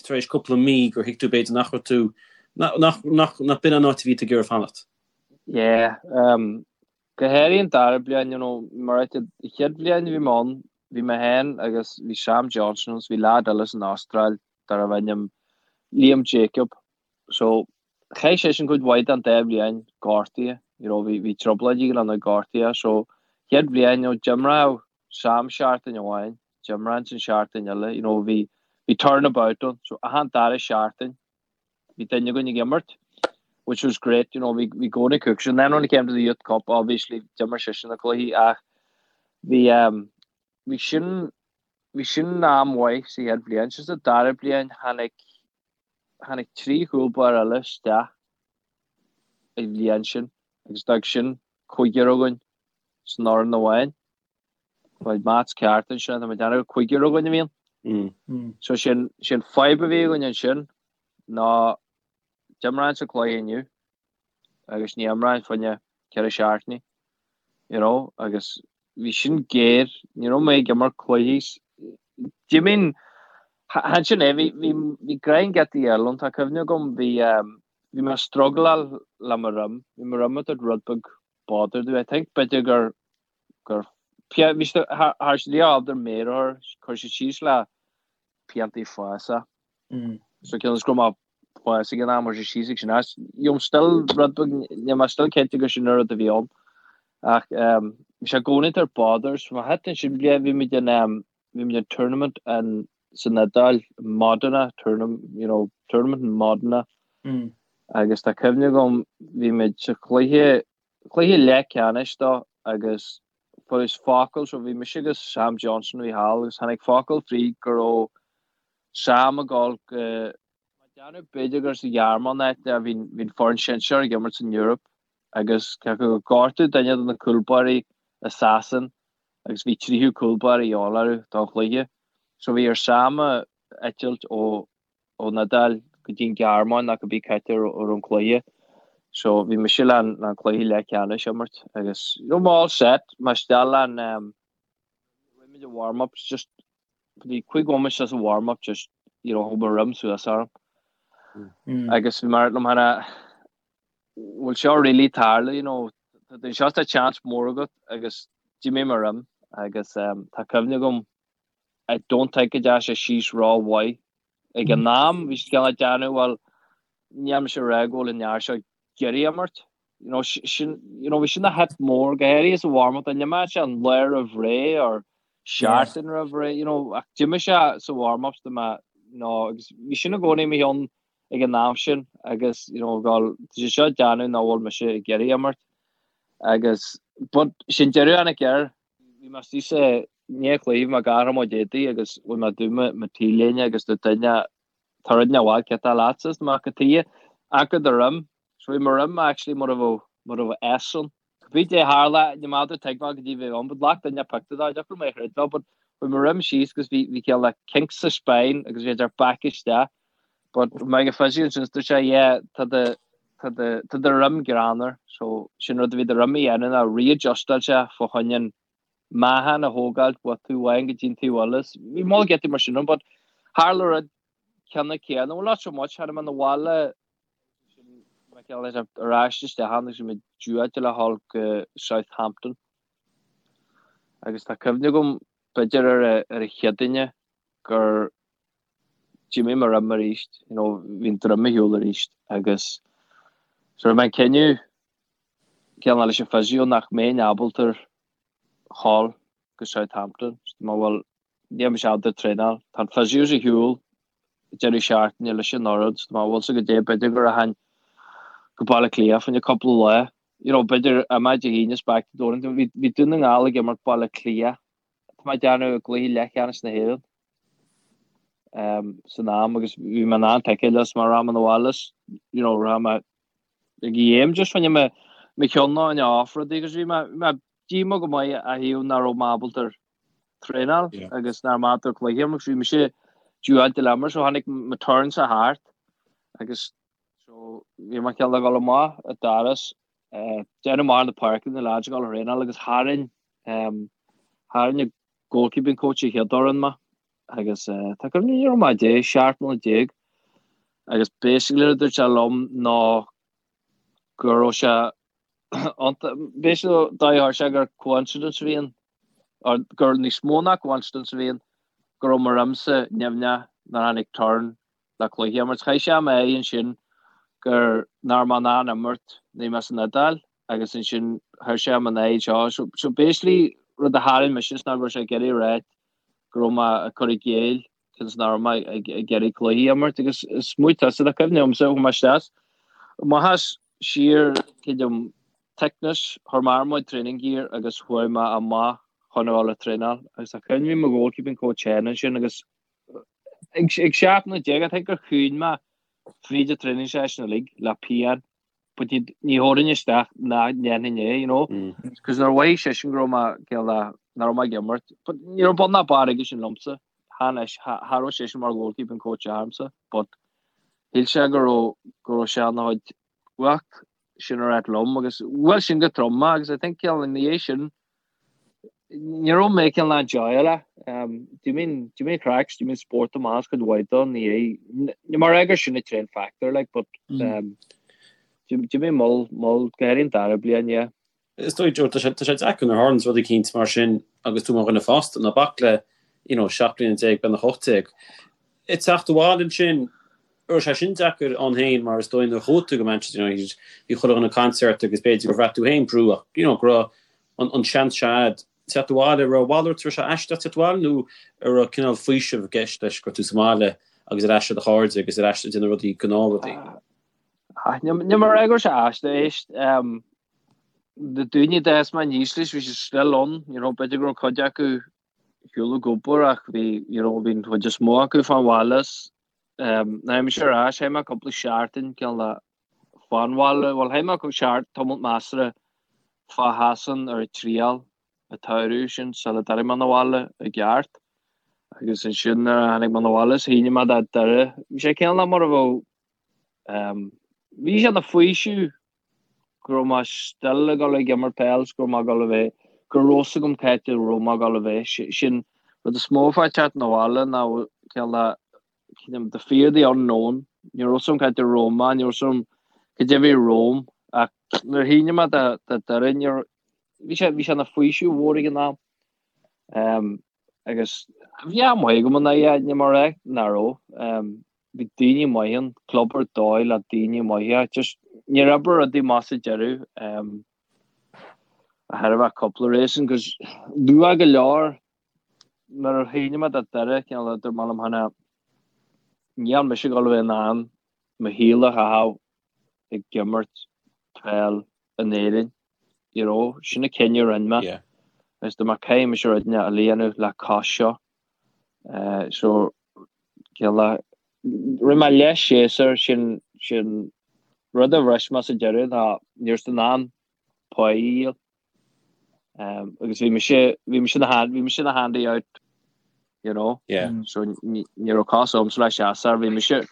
tar éis cúpla mí gur thuig tú b'fhéidir nach raibh tú, nach, nach, nach, nach b'in an áit a bhí tú ag iarraidh fanacht? Yeah, um, go háirithe an dara bliain, you know, mar an chéad bhliain a bhí mé ann, bhí mé féin agus bhí Sam Johnstone agus bhí leaid eile san Astráil darbh ainm Liam Jacob. So chaith seisean cuid mhaith den dá bhliain gortaithe, you know, bhí bhí trioblóidí go leor gortaithe. So chéad bhliain, you know, d'imreodh Sam seachtain amháin, d'imreoinnse an seachtain eile, you know, bhí bhí turnabout ann. So achan dara seachtain bhí duine againn ag imirt, which was great, you know, bhí bhí gcónaí cook. And then when it came to the Youth Cup, obviously d'imir seisean na cluichí ach bhí um, bhí sin bhí sin am mhaith sa chéad bhliain. Sa dara bliain tháinig tháinig 3 chúl báire eile isteach an bhliain sin agus d'fhág sin cúigear againn san fhoireann amháin. Bhfuil maths ceart ansin, tá mé ag déanamh cúigear againn a bhíonn. So sin sin fadhb a bhí againn ansin ná d'imreoinnse cluiche inniu agus ní imreoinn fá choinne 4 seachtainí, you know, agus bhí sin géar, ní raibh mé ag imirt cluichí. Do you mean, chan sin é, bhí, bhí, bhí grind getaí eile ann, tá cuimhne agam, bhí, bhí mé ag struggleáil le mo dhroim, bhí mo dhroim ag tabhairt rud beag bother domh, I think b'fhéidir gur, gur, bhí sé, thar sé ábalta méar a chur, chuir sé síos le piantaí foghsach. So cionn is go raibh mé foghsach ag an am, chuir sé síos ag sin as. You know, still rud beag, níl mé still cinnte gur sin an rud a bhí ann. Ach bhí sé i gcónaí ag tabhairt bother. So má thit ansin bliain, bhí muid in, bhí muid in tournament in, san Iodáil, Modena, tournament, you know, tournament in Modena. Agus tá cuimhne agam, bhí muid sa chluiche, cluiche leathcheannais dó agus fuarthas focal, so bhí mise agus Sam Johnstone a bhí thall agus tháinig focal fríd go raibh Sam ag dul go, déanamh b'fhéidir gur sa Ghearmáin áit a bhí an foireann sinsear ag imirt san Eoraip agus cé acu gur gortaíodh duine de na cúlbáirí i Sasain agus bhí tríú cúlbáire a dhíobháil orthu don chluiche. So bhí ar Sam a eitilt ó ón Iodáil go dtí an Ghearmáin nó cibé cá háit a raibh an cluiche. So bhí mise le an cluiche leathcheannais a imirt agus you know mé all set mé isteach le an um, rinne muid an warm-ups just bhí 5 bhomaite as an warm-up just you know thug mo dhroim suas orm. Mm. Agus bhí mar liom hana bhfuil seo really tarlú you know tá seo tá chance mór agat agus d'imigh mo dhroim agus um, tá cuimhne agam I don't think go dteachaigh sé síos ró-mhaith ag an am. Bhí siad cineál ag déanamh, bhuel, níl mise ag rá go bhfuil an fhear seo ag iarraidh imirt. You know, sin, you know, bhí sin a hit mór, go háirithe sa warm-up, dá n-imeodh sé an lá roimh ré or seachtain roimh ré, you know, ach d'imigh sé sa warm-ups do mé, you know, agus bhí sin i gcónaí i mo cheann ag an am sin agus, you know, gal, tá sé seo ag déanamh nach bhfuil mise ag iarraidh imirt. Agus, but, sin deireadh a tháinig air, Bhí mé istigh sa ndiaidh cluiche, bhí mé ag athrú mo chuid éadaí agus bhí mé ag dúnadh mo t-léine agus dúirt duine, tá rud inteacht mhaith, céard atá leatsa? Is mé cad tuighe? Amharc ar do dhroim. So bhí mo dhroim actually mar a bheadh, mar a bheadh S ann. Cibé caidé a tharla, ní maith do tuigbheáil go dtí bheith ann, but ghlac duine pictiúr de, deacair mé a chreidbheáil, but bhí mo dhroim síos agus bhí, bhí cineál like kink sa spine agus bhí sé back isteach. But mé ag an physio ansin, dúirt sé, yeah, tá do, tá do, tá do dhroim greannmhar. So sin rud a bhí do dhroim a dhéanamh ná readjustáil sé fá choinne an meáchan a thógáilt ó taobh amháin go dtí an taobh eile. Bhí moll giotaí mar sin ann, but tharla rud ceanna céanna, well not so much, tháinig mé 'na bhaile sin mé cineál leis ar ais isteach ann agus bhí mé due le dhul go Southampton. Agus tá cuimhne agam b'fhéidir ar a, ar a Chéadaoine gur d'imigh mo dhroim arís, you know, bhí an droim ar shiúl arís agus so rinne mé an cinneadh cineál leis an physio nach mbeinn ábalta dhul go Southampton. So mé bhuel níl mise ábalta traenáil. Tá an physio ar shiúl deireadh seachtaine leis an fhoireann, so mé bhfuil sa go dté b'fhéidir go rachainn go Baile Átha Cliath fá choinne cúpla lá. You know, b'fhéidir imeacht Dé hAoine is back to Donington. Bhí, bhí Dún na nGall ag imirt Baile Átha Cliath. Tá mé ag déanamh i gcluiche leathcheannais na hÉireann san am agus bhí mé in ann ticéad leis mar rachainn 'na bhaile you know rachainn mé ag game just fá choinne mo mo cheann a choinneáil off rudaí agus bhí mé bhí mé díomách go maith a thaobh nach raibh mé ábalta traenáil agus nach raibh mé ábalta cluiche a imirt agus bhí mise due le imirt so tháinig mo turn sa thart agus so bhí mé cineál ag dul amach an doras déanamh amach na páirce na lads ag dul a thraenáil agus tharraing tharraing an goalkeeping coach a chéad fhoireann mé agus tá cuimhne ní raibh mé 10, 17 mbliana agus basically a dúirt sé liom ná go raibh sé basically dá chuir sé gur coincidence a bhí ann. Or gur níos mó ná coincidence a bhí ann go raibh mo roimse nimhneach nuair a tháinig turn le cluiche a imirt. Chaith sé m'aghaidh ansin gur nach raibh mé in ann imirt nuair a bhí mé san Iodáil agus ansin chuir sé m'aghaidh anseo. So, so basically rud a tharraing mise is ná go raibh sé ag iarraidh a ráit go raibh mé ag cur i gcéill cionn is nach raibh mé ag iarraidh cluichí a imirt agus smaoinigh tusa tá cuimhne agamsa chuaigh mé isteach amach as siar creidim Thicknesse, chuir mé ar mo training gear agus chuaigh mé amach chun a dhul ag traenáil agus tá cuimhne bhí mo goalkeeping coach féin ansin agus ag 17 nóiméad I think gur chaoin mé fríd an training session uilig le pian but ní ní thabharfainn isteach ná ndéanfainn é you know cos nuair a mhothaigh seisean go raibh mé cineál nach raibh mé ag imirt but ní raibh bun ná barr aige sin liomsa cha cha raibh seisean mar goalkeeping coach agamsa but shíl sé go raibh go raibh sé ina chuid cumhacht sin a ráit liom agus bhuail sin go trom mé agus I think cineál ina dhiaidh sin ní raibh mé cineál enjoyáil um, do you mean do you mean craic do you mean sport amach as cuid mhaith dó ní ní mar gur sin a train factor like but mm. um, do you mean mol mol go háirithe an dara bliain yeah. Is dóigh Joe tá sé tá sé deacair nuair a tharlaíonn rud eicínt mar sin agus tú mar dhuine fásta ná bac le you know 17 bliana beagnach 18. Ag teacht abhaile ansin raibh sé sin deacair ann féin mar is dóigh nuair a chuaigh tú go Manchester United bhí chuile dhuine ag caint ort agus b'fhéidir gur bhraith tú féin brú ach you know go raibh an an seans seo a'd teacht abhaile raibh a mhalairt raibh sé aisteach teacht abhaile nó an raibh cineál faoiseamh i gceist leis go raibh tú sa mbaile agus ar ais le do chairde agus ar ais ag déanamh rudaí gnáthrudaí. Níl mé ag rá go raibh sé aisteach éist na daoine a d'fhás mé aníos leis bhí siad still ann you know b'fhéidir go raibh cuid acu ar shiúl ag obair ach bhí you know bhí an chuid is mó acu fán bhaile is um, nuair a tháinig mise ar ais chaith mé cúpla seachtain cineál de fán bhaile bhuel chaith mé cúpla seachtain tamall measartha fá Shasain ar an triail an tsamhradh sin sula dtáinig mé 'na bhaile i gceart agus ansin nuair a tháinig mé 'na bhaile is shínigh mé do Doire bhí sé cineál mar a bheadh um, bhí sé ina faoiseamh go raibh mé still ag dul ag imirt peil 's go raibh mé ag dul a bheith, go raibh fhios agam cá háit a raibh mé ag dul a bheith. Sin rud is mó fá teacht 'na bhaile ná cineál de, cineál the fear of the unknown. Ní raibh fhios agam cá háit a raibh mé, ní raibh fhios agam cad é a bhí romham ach nuair a shínigh mé do do Doire ní raibh, bhí sé, bhí sé ina faoiseamh mhór ag an am. Um, agus bhí am maith agam in aghaidh, ní mar é, nach raibh. Um, Bhí daoine maithe ann, club ar dóigh le daoine maithe. Just níor oibrigh rudaí amach sa deireadh. Um, a thairbhe cúpla reason, cos luath go leor nuair a shínigh mé do Doire cineál dúirt mé liom féin níl mise ag dul a bheith in ann mo shaol a chaitheamh ag imirt peil in Éirinn. You know, sin an cinneadh a rinne mé. Yeah. Agus dúirt mé caithfidh mise rud inteacht a dhéanamh le cos seo. Uh, so Cineál rinne mé leathshéasúr sin sin rud a bhris mé sa deireadh ná ní raibh in ann pá a dhíol. Um, agus bhí mise bhí mise na hand bhí mise na handy out you know yeah. so ní raibh cos agamsa le séasúr bhí mise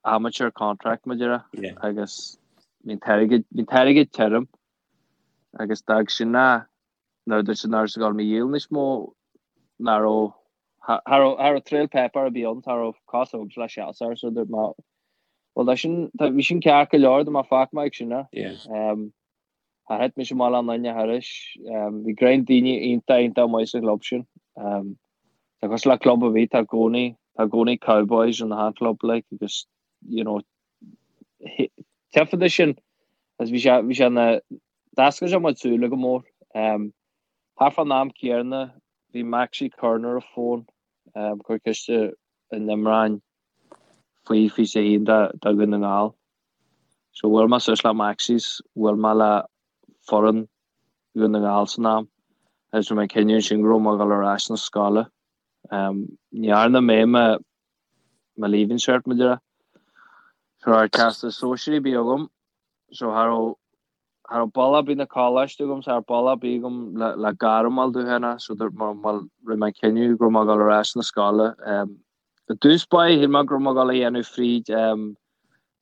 amateur contract mar a déarfá yeah. agus bhí an t-airgead bhí an t-airgead tirim agus d'fhág sin na nuair a dúirt siad nach raibh siad ag dul mé a dhíol níos mó ná raibh cha raibh cha raibh trail paper ar bith ann cha raibh cos agamsa le séasúr so dúirt mé bhuel tá sin tá bhí sin ceart go leor dúirt mé fágfaidh mé ag sin é. Yeah. Um, char thit mise amach le aon duine thairis. Um, bhí greim daoine iontach iontach maith sa chlub sin. Um, tá cosúil le club ar bith tá i gcónaí tá i gcónaí cowboys in achan club like agus you know taifeadadh sin agus bhí sé bhí sé na D'oscail sé mo shúile go mór. Thart fán am céanna bhí Maxie Curran ar an bhfón, ag cur ceiste an imreoinn faoi 21 do Dhún na nGall. So bhuail mé suas le Maxie 's bhuail mé le foireann Dhún na nGall san am agus rinne mé an cinneadh ansin go raibh mé ag dul ar ais na scoile. Ní dhearna mé mo mo leaving cert mar a déarfá. So cha raibh teastas sóisearaí ar bith agam so cha raibh Cha raibh bealach ar bith 'na coláiste agam, cha raibh bealach ar bith agam le gairm a fháil domh féin so dúirt mé, bhuel, rinne mé an cinneadh go raibh mé ag dul ar ais na scoile. I dtús báire, shíl mé go raibh mé ag dul a dhéanamh fríd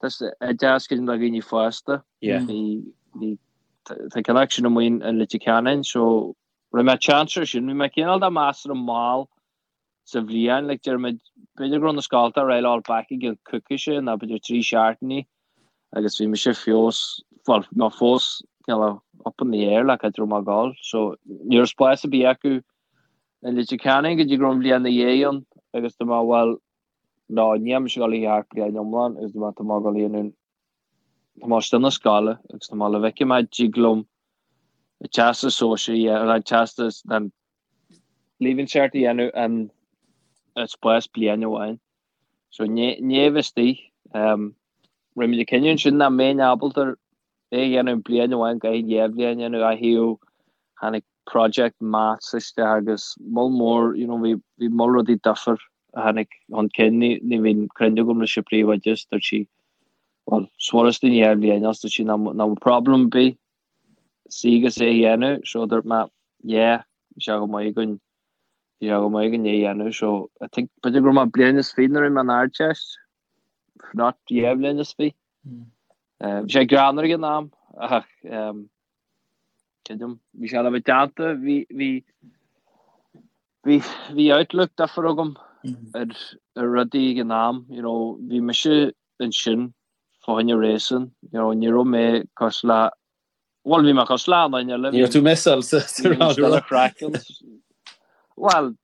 oideachas creidim do dhaoine fásta. Bhí, bhí, tá ceann acu sin amuigh in Leitir Ceanainn, so rinne mé chance ar sin. Bhí mé cineál de measartha mall sa bhliain, like déarfaimid, b'fhéidir go raibh na scolta ag roll back i gcionn coicíse nó b'fhéidir 3 seachtainí agus bhí mise fós, bhuel, nó fós cineál up in the air like cá raibh mé ag dul. So ní raibh spás ar bith acu. I Leitir Ceanainn go dtí go raibh an bhliain ina dhiaidh ann agus dúirt mé bhuel no níl mise ag dul a theacht bliain iomlán agus dúirt mé tá mé ag dul a dhéanamh tá mé istigh na scoile agus tá mé le bhfeicfidh mé dtig liom an teastas sóisear a an teastas an Leaving Cert a dhéanamh in spás bliain amháin. So ní bheith istigh. Rinne muid an cinneadh ansin nach mbeinn ábalta é a dhéanamh bliain amháin go dtí an bhliain a dhéanamh a thaobh tháinig project maths isteach agus moll mór you know bhí bhí moll rudaí difear a tháinig chun cinn ní ní bhíonn cruinniú agam leis an príomhoide is dúirt sí well is furasta ní dhá bhliain as dúirt sí ná ná problem ar bith suí agus é a dhéanamh so dúirt mé yeah bhí sé go maith againn bhí sé go maith againn é a dhéanamh so I think b'fhéidir go raibh mé bliain is fiche nuair a bhí mé an Ardteist if not dhá bhliain is fiche. Bhí sé greannmhar ag an am ach creidim bhí sé le bheith déanta bhí bhí bhí bhí outlook difear agam ar ar rudaí ag an am you know bhí mise ansin fá choinne réasún you know ní raibh mé cosúil le bhuel bhí mé cosúil le an duine eile Ní raibh tú messáil sa sa craiceann Bhuel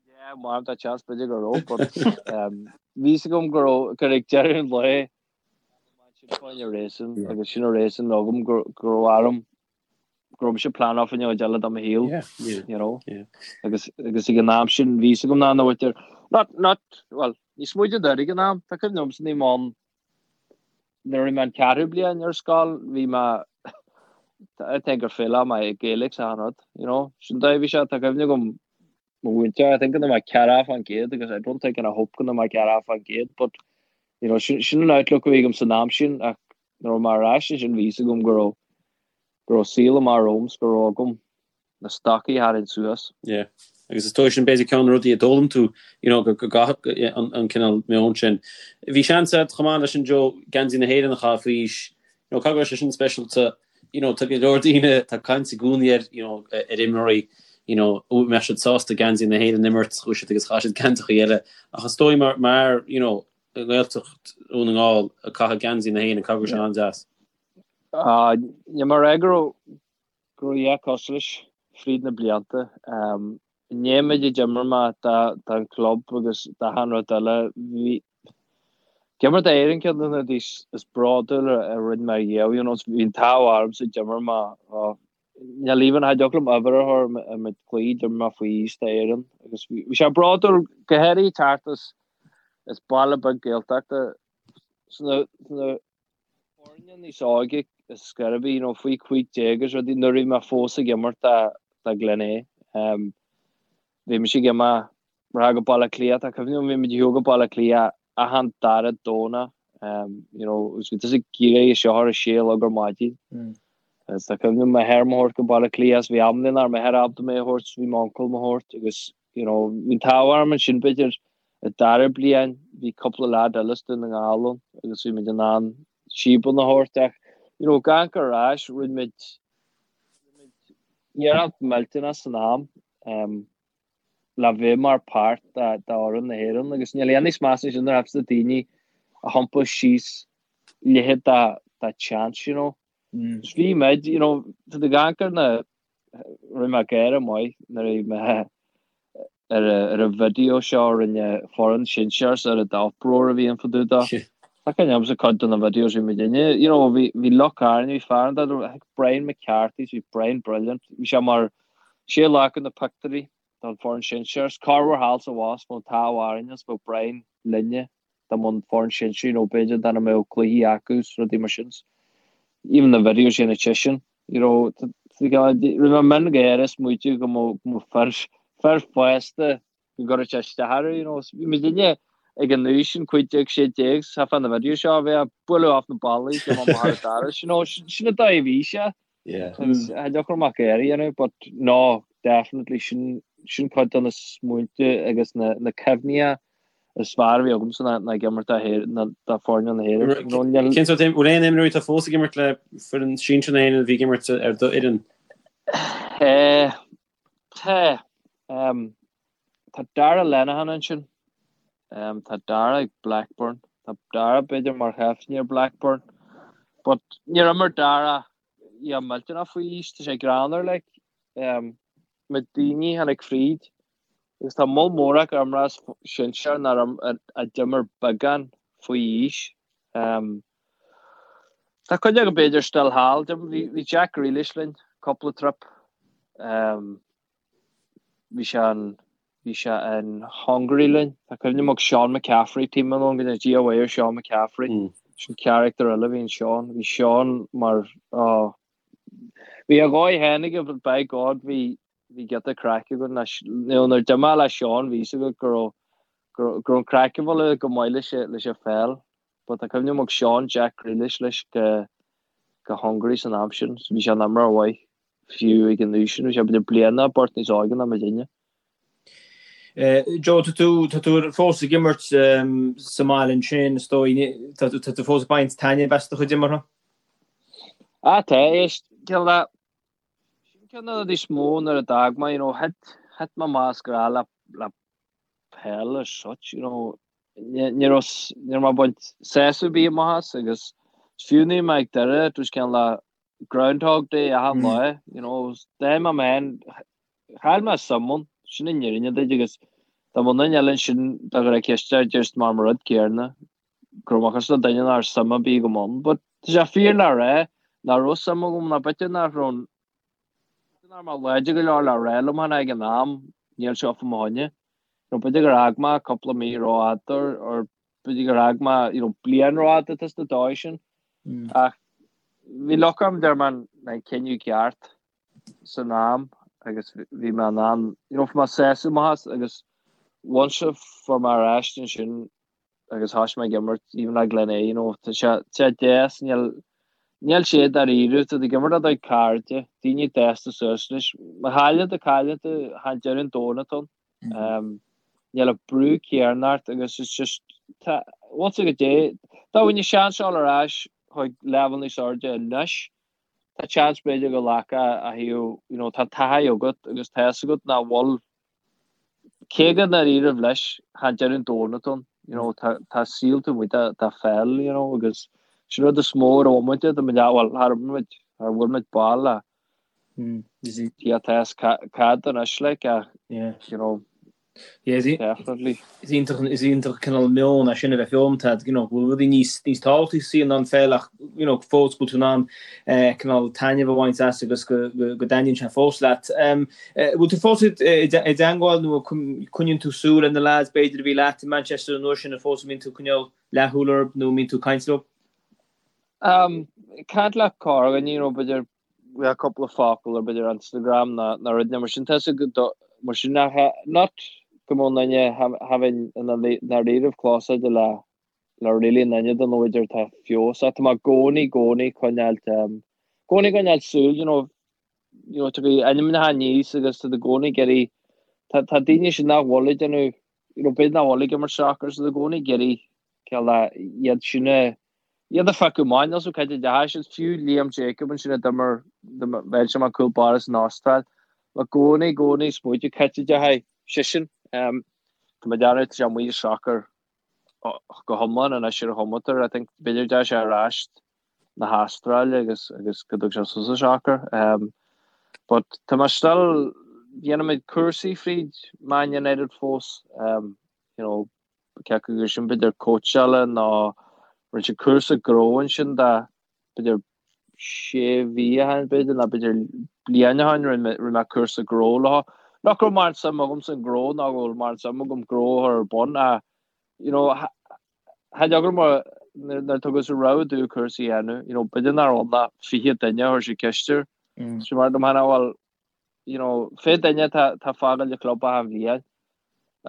Yeah, mar tá chance b'fhéidir go raibh, but bhí fhios agam go raibh gur ag deireadh an lae sin fá choinne réasún agus sin an réasún agam go raibh orm go raibh mise pleanáil fá choinne cuid eile de mo shaol, you know. Agus agus ag an am sin bhí fhios agam nach ndóitear not not well ní smuide d'air ag an am, tá cuimhne agamsa ní món nuair a bhí mé an ceathrú bliain ar scoil bhí mé I think gur fail mé i Gaelic sa rud, you know. Sin dóigh bhí sé tá cuimhne agam mo mhúinteoir, I think go mbeidh 40% agus I don't think and I hope go mbeidh 40% but you know sin sin an outlook a bhí agam san am sin ach nuair a raibh mé ar ais ansin bhí fhios agam go raibh go raibh saol amach romham 's go raibh agam na stocaí a tharraingt suas. Yeah. Agus is dóigh sin b'fhéidir ceann de na rudaí a d'fhoghlaim tú, you know, go gcaithfeadh an an cineál meon sin. Bhí seans agat chomh maith leis sin Joe, geansaí na hÉireann a chaitheamh faoi aois. You know, caithfidh go raibh sé sin speisialta, you know, tá go leor daoine, tá caint i gcónaí ar, you know, ar imreoirí, you know, an mbeadh siad sásta geansaí na hÉireann a imirt, chuaigh siad agus chaith siad geansachaí eile. Ach is dóigh mar, mar, you know, i nGaeltacht Dhún na nGall ag caitheamh geansaí na hÉireann, caithfidh go raibh sé an-deas. Ah, ní mar é go raibh, go raibh a dhath cosúil leis fríd na blianta. I ndiaidh an méid a d'imir mé don chlub agus d'achan rud eile, bhí ag imirt d'Éirinn ceann de na rudaí is bródúla a rinne mé riamh, you know, bhí an t-ádh ormsa d'imir mé, níl even, cha dtiocfadh liom uimhir a chur ar méid cluichí d'imir mé faoi aois d'Éirinn agus bhí sé bródúil go háirithe teacht as as baile beag Gaeltachta sna sna foirne níos óige is scairbí, you know, faoi 15 agus rudaí, nuair a bhí mé fós ag imirt do Glenea. Bhí mise ag imeacht go Baile Átha Cliath, tá cuimhne agam bhí muid ag shiúl go Baile Átha Cliath achan dara Domhnach, you know, agus bhí tusa ag iarraidh seo ar a sé a chlog ar maidin. Agus tá cuimhne agam m'athair mo thabhairt go Baile Átha Cliath, bhí am nach raibh m'athair ábalta mé a thabhairt, bhí m'uncail mo thabhairt agus, you know, bhí an t-ádh orm ansin b'fhéidir I dara bliain bhí cúpla leaid eile as Dún na nGall ann agus bhí muid in ann síobanna a thabhairt ach you know gan cur ar ais rinne muid rinne muid iarracht millteanach san am um, le bheith mar páirt de d'fhoireann na hÉireann agus níl aon níos measa sin nuair a daoine a thiompú síos leithéid de de chance you know. Mm. Bhí muid you know tá do gan cur na Rinne mé gáire maith nuair a bhí mé ar ar an video seo a rinne foireann sinsear ar an uproar a bhí ann fá dtaobh dó. Tá cuimhne agamsa cuid de na videos bhí muid inne, you know, bhí bhí lúcháir orainn, bhí fear an I think Brian McCarthy, bhí Brian brilliant, bhí sé mar sé a ghlac na pictiúirí don foireann sinsear, corruair thall 's abhus bheadh an t-ádh orainn is bheadh Brian linne dá mbeadh an foireann sinsear, you know, b'fhéidir dá mbeadh cluichí acu is rudaí mar sin. Even na videos sin sin, you know, rinne mé mion gáire is smaoitiú go mbeadh fir, fir fásta go gcuirfeadh sé isteach orthu, you know. Bhí muid inne ag an aois sin, 15, 16, sa fá na videos seo a bheith ag bualadh off na ballaí, go mbeadh mar a you know, sin an dóigh a bhí sé. Yeah. Agus cha dtiocfadh amach air a dhéanamh, but no, definitely sin, sin cuid de na smaointe agus na, na cuimhní is fearr a bhí agamsa ná, ná ag imirt do Héir, ná do foirne na hÉireann. You know, níl- Cén sórt, bhfuil aon imreoirí atá fós ag imirt le foireann sinsir na hÉireann a bhí ag imirt ar do fhoireann? Eh, tá, um, tá Dara Lenihan ansin. Um, tá Dara ag Blackburn. Tá Dara b'fhéidir mar chaiftín ar Blackburn. But níor imir Dara yeah, millteanach faoi aois, tá sé greannmhar, like, um, na daoine a tháinig fríd. Agus tá moll mór acu imreoirí sinsear nár a d'imir beagán faoi aois. Tá cuid acu b'fhéidir still thall. Bhí Jack Grealish linn cúpla trip. Bhí sé in bhí sé in Hungary linn. Tá cuimhne agam Sean McCaffrey, team ann go Dia mhaith ar Sean McCaffrey. Sin character eile a bhí in Sean. Bhí Sean mar oh, bhí a dhóigh féin aige but by God bhí bhí giota craic againn leis. Nuair a d'imir mé le Sean bhí fhios agat go raibh go raibh an craic ag dul go maith leis leis an pheil. But tá cuimhne agam ag Sean Jack Grealish leis go go Hungary san am sin. So bhí sé ina imreoir mhaith fiú ag an aois sin. Bhí sé b'fhéidir bliain nó beirt níos óige ná muidinne. Joe, tá tú tá tú fós ag imirt sa mbaile ansin, is dóigh, tá tú fós ag baint taitneamh as do chuid imeartha? Ah, tá, éist, cineál de, Sin ceann de na rudaí is mó nuair a d'fhág mé, you know, thit, thit mé amach as grá le, le peil as such, you know, ní, ní raibh, ní raibh mé ag baint sásamh ar bith amach as agus fiú nuair a bhí mé ag Doire, it was cineál de Groundhog Day achan lá, you know, d'fhág mé mé féin, chaill mé suim ann, sin an fhírinne duit agus dá mbeadh duine eile ansin dá gcuirfeá ceist air, déarfadh mar an rud céanna. go raibh mé cosúil le duine nach raibh suim ar bith agam ann. But tá sé fíor le rá nach raibh suim agam ná b'fhéidir nach raibh b'fhéidir nach raibh mé láidir go leor le rá liom féin ag an am níl seo fá mo choinne. You know, b'fhéidir gur fhág mé cúpla mí rófhada or b'fhéidir gur fhág mé you know, bliain rófhada tá sa dóigh sin. Ach bhí luck orm deir mé an cinneadh ceart san am agus bhí mé in ann you know, fuair mé sásamh amach as agus once a fuair mé ar ais ansin agus thosaigh mé ag imirt even le Glenea you know tá sé tá sé deas níl níl sé dáiríre tá tú ag imirt le do chairde daoine fásta suas leis má chailleann tú cailleann tú chan deireadh an domhain atá ann um, níl an brú céanna ort agus it's just tá once a go dé dá bhfuil seans dul ar ais chuig leibhéal níos airde anois tá seans b'fhéidir go nglacfá a thaobh you know tá taithí agat agus tá fhios agat nach bhfuil Cé go ndáiríribh leis, chan deireadh an domhain atá ann, you know, tá, tá saol taobh amuigh de, de pheil, you know, agus sin rud is mó a raibh muid, tá muid, bhuel, char imir muid, char bhuail muid ball le yeah, tá fhios cad anois, like, ach, you know, definitely. Is iontach, is iontach cineál meon é sin a bheith foghlamtha agat, you know, go bhfuil rudaí níos, níos tábhachtaí sa saol ná an pheil ach, you know, fós go bhfuil tú in ann cineál taitneamh a bhaint as agus go, go, go dtaitníonn sé fós leat. Bhfuil tú fós i dteangmháil nó coinníonn tú súil ar na lads b'fhéidir a bhí leat i Manchester an uair sin an fós a mbíonn tú ag coinneáil leathshúil orthu nó an mbíonn tú ag caint leo? Caint le corrdhuine, you know, b'fhéidir le cúpla focal ar b'fhéidir Instagram nó nó rud mar sin tá sé go mar sin nach not go mbeadh duine having ina ndáiríribh close le le really an duine den bhféidir tá feabhas tá mé i gcónaí gcónaí coinneáil gcónaí coinneáil súil you know you know, tiocfaidh ainmneacha aníos agus tá i gcónaí ag iarraidh, tá, tá daoine sin nach bhfuil ag déanamh, you know, b'fhéidir nach bhfuil ag imirt soccer, so i gcónaí ag iarraidh cineál iad sin a, iad a phiocadh amach, níl 's agam cad a deachaigh siad, fiú Liam Jacob ansin a d'imir, bheinn sé mar cúl báire san Astráil, i gcónaí, i gcónaí smaoitiú cad a deachaigh seisean, um, tá mé ag déanamh, tá sé amuigh as soccer go hiomlán anois ar a chomatar, I think b'fhéidir deachaigh sé ar ais na hAstráile agus agus go dtug sé suas an soccer. Um, but tá mé still dhéanaimid cúrsaí fríd Man United fós. Um, you know, cé acu gur sin b'fhéidir cóitseála nó rinne siad cúrsa gnó ansin de b'fhéidir sé mhí ó shin b'fhéidir nó b'fhéidir bliain ó shin rinne mé cúrsa gnó leo. Nach raibh mórán suim agam san gnó ná go bhfuil mórán suim agam gnó a chur ar bun ach you know, Tha deacair mar nuair a tugadh sa rogha domh cúrsa a dhéanamh, you know, b'fhéidir nach raibh ann ach 20 duine a chuir siad ceist air. So mar dom cheana, bhuel, you know, 20 duine tá tá fágáil an chlub achan bhliain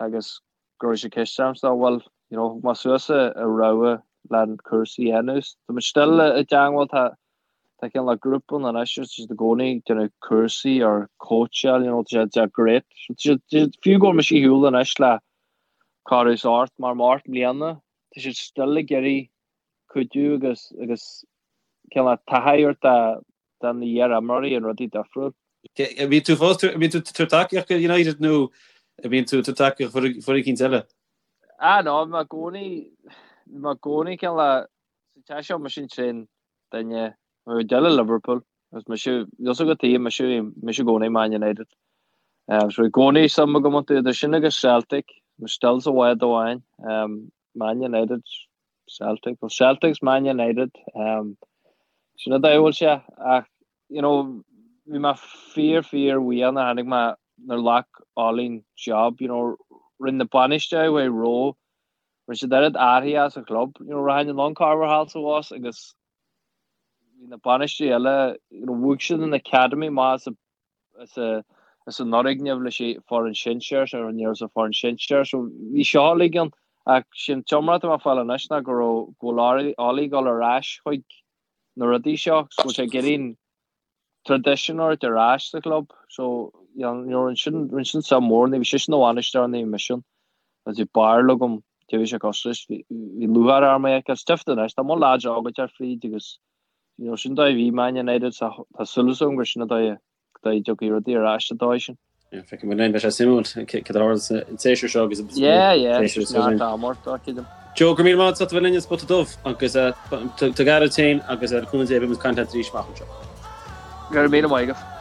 agus go raibh siad ceist orm so, bhuel, you know, thug mé suas a rogha le an cúrsa a dhéanamh. Tá muid still i dteangmháil, tá tá cineál le grúpa ann anois agus tá siad i gcónaí ag déanamh cúrsaí or cóitseáil, you know, tá sé tá sé great. So tá siad tá siad fiú go bhfuil mise ar shiúl anois le corradh is ort mar mort mbliana, tá siad still ag iarraidh cuidiú agus agus cineál taithí a thabhairt do na iar-imreoirí an rudaí difriúil. An mbíonn tú fós, an mbíonn tú ag tabhairt tacaíocht do United nó an mbíonn tú ag tabhairt tacaíocht foireann eicínt eile? Ah no, bhí mé i gcónaí, bhí mé i gcónaí cineál sa teach seo mise an t-aon duine, bhí Della Liverpool agus mise, níl 's agat tuige, mise, mise i gcónaí Man United. So i gcónaí suim agam iontu, idir sin agus Celtic, mé still sa bhád amháin, Man United, Celtic, well Celtic's Man United, sin an dóigh a bhfuil sé, ach you know, bhí mé fíor fíor bhuíoch nuair a tháinig mé nuair a ghlac Ollie an job, you know, rinne na bainisteoirí a bhí roimhe, rinne siad oiread athraithe sa chlub, you know, rachainn anonn corruair thall is abhus agus bhí na bainisteoirí eile, you know, bhuaigh siad an academy amach as a as an fhoirgneamh leis an foireann sinsear, so ní raibh sa foireann sinsear, so bhí seo uilig ann ach sin t-iomrá atá mé ag fáil anois ná go raibh go bhfuil Ollie ag dul ar ais chuig na rudaí seo agus go bhfuil sé ag iarraidh an tradition a thabhairt ar ais sa chlub so you know rinne sin rinne sin suim mhór ní bhí seisean ina bhainisteoir ní bhí mise ann agus bhí barúil agam cé bhí sé cosúil leis bhí bhí lúcháir orm é a fheiceáil stiofta anois tá mo lads óga ag teacht fríd agus You know, sin dóigh a bhí Man United, so tá súil agam gur sin an dóigh a dtiocfaidh rudaí ar ais an dóigh sin. Yeah, feicfidh muid linn, beidh sé suimiúil cad a tharla an séasúr seo agus Yeah, yeah, neart am ort, dá creidim. Joe, go raibh míle maith agat as ucht a bheith linn ar Spota Dubh agus tabhair aire duit féin agus le cúnamh Dé beidh muid ag caint leat arís amach anseo. Go raibh míle maith agat.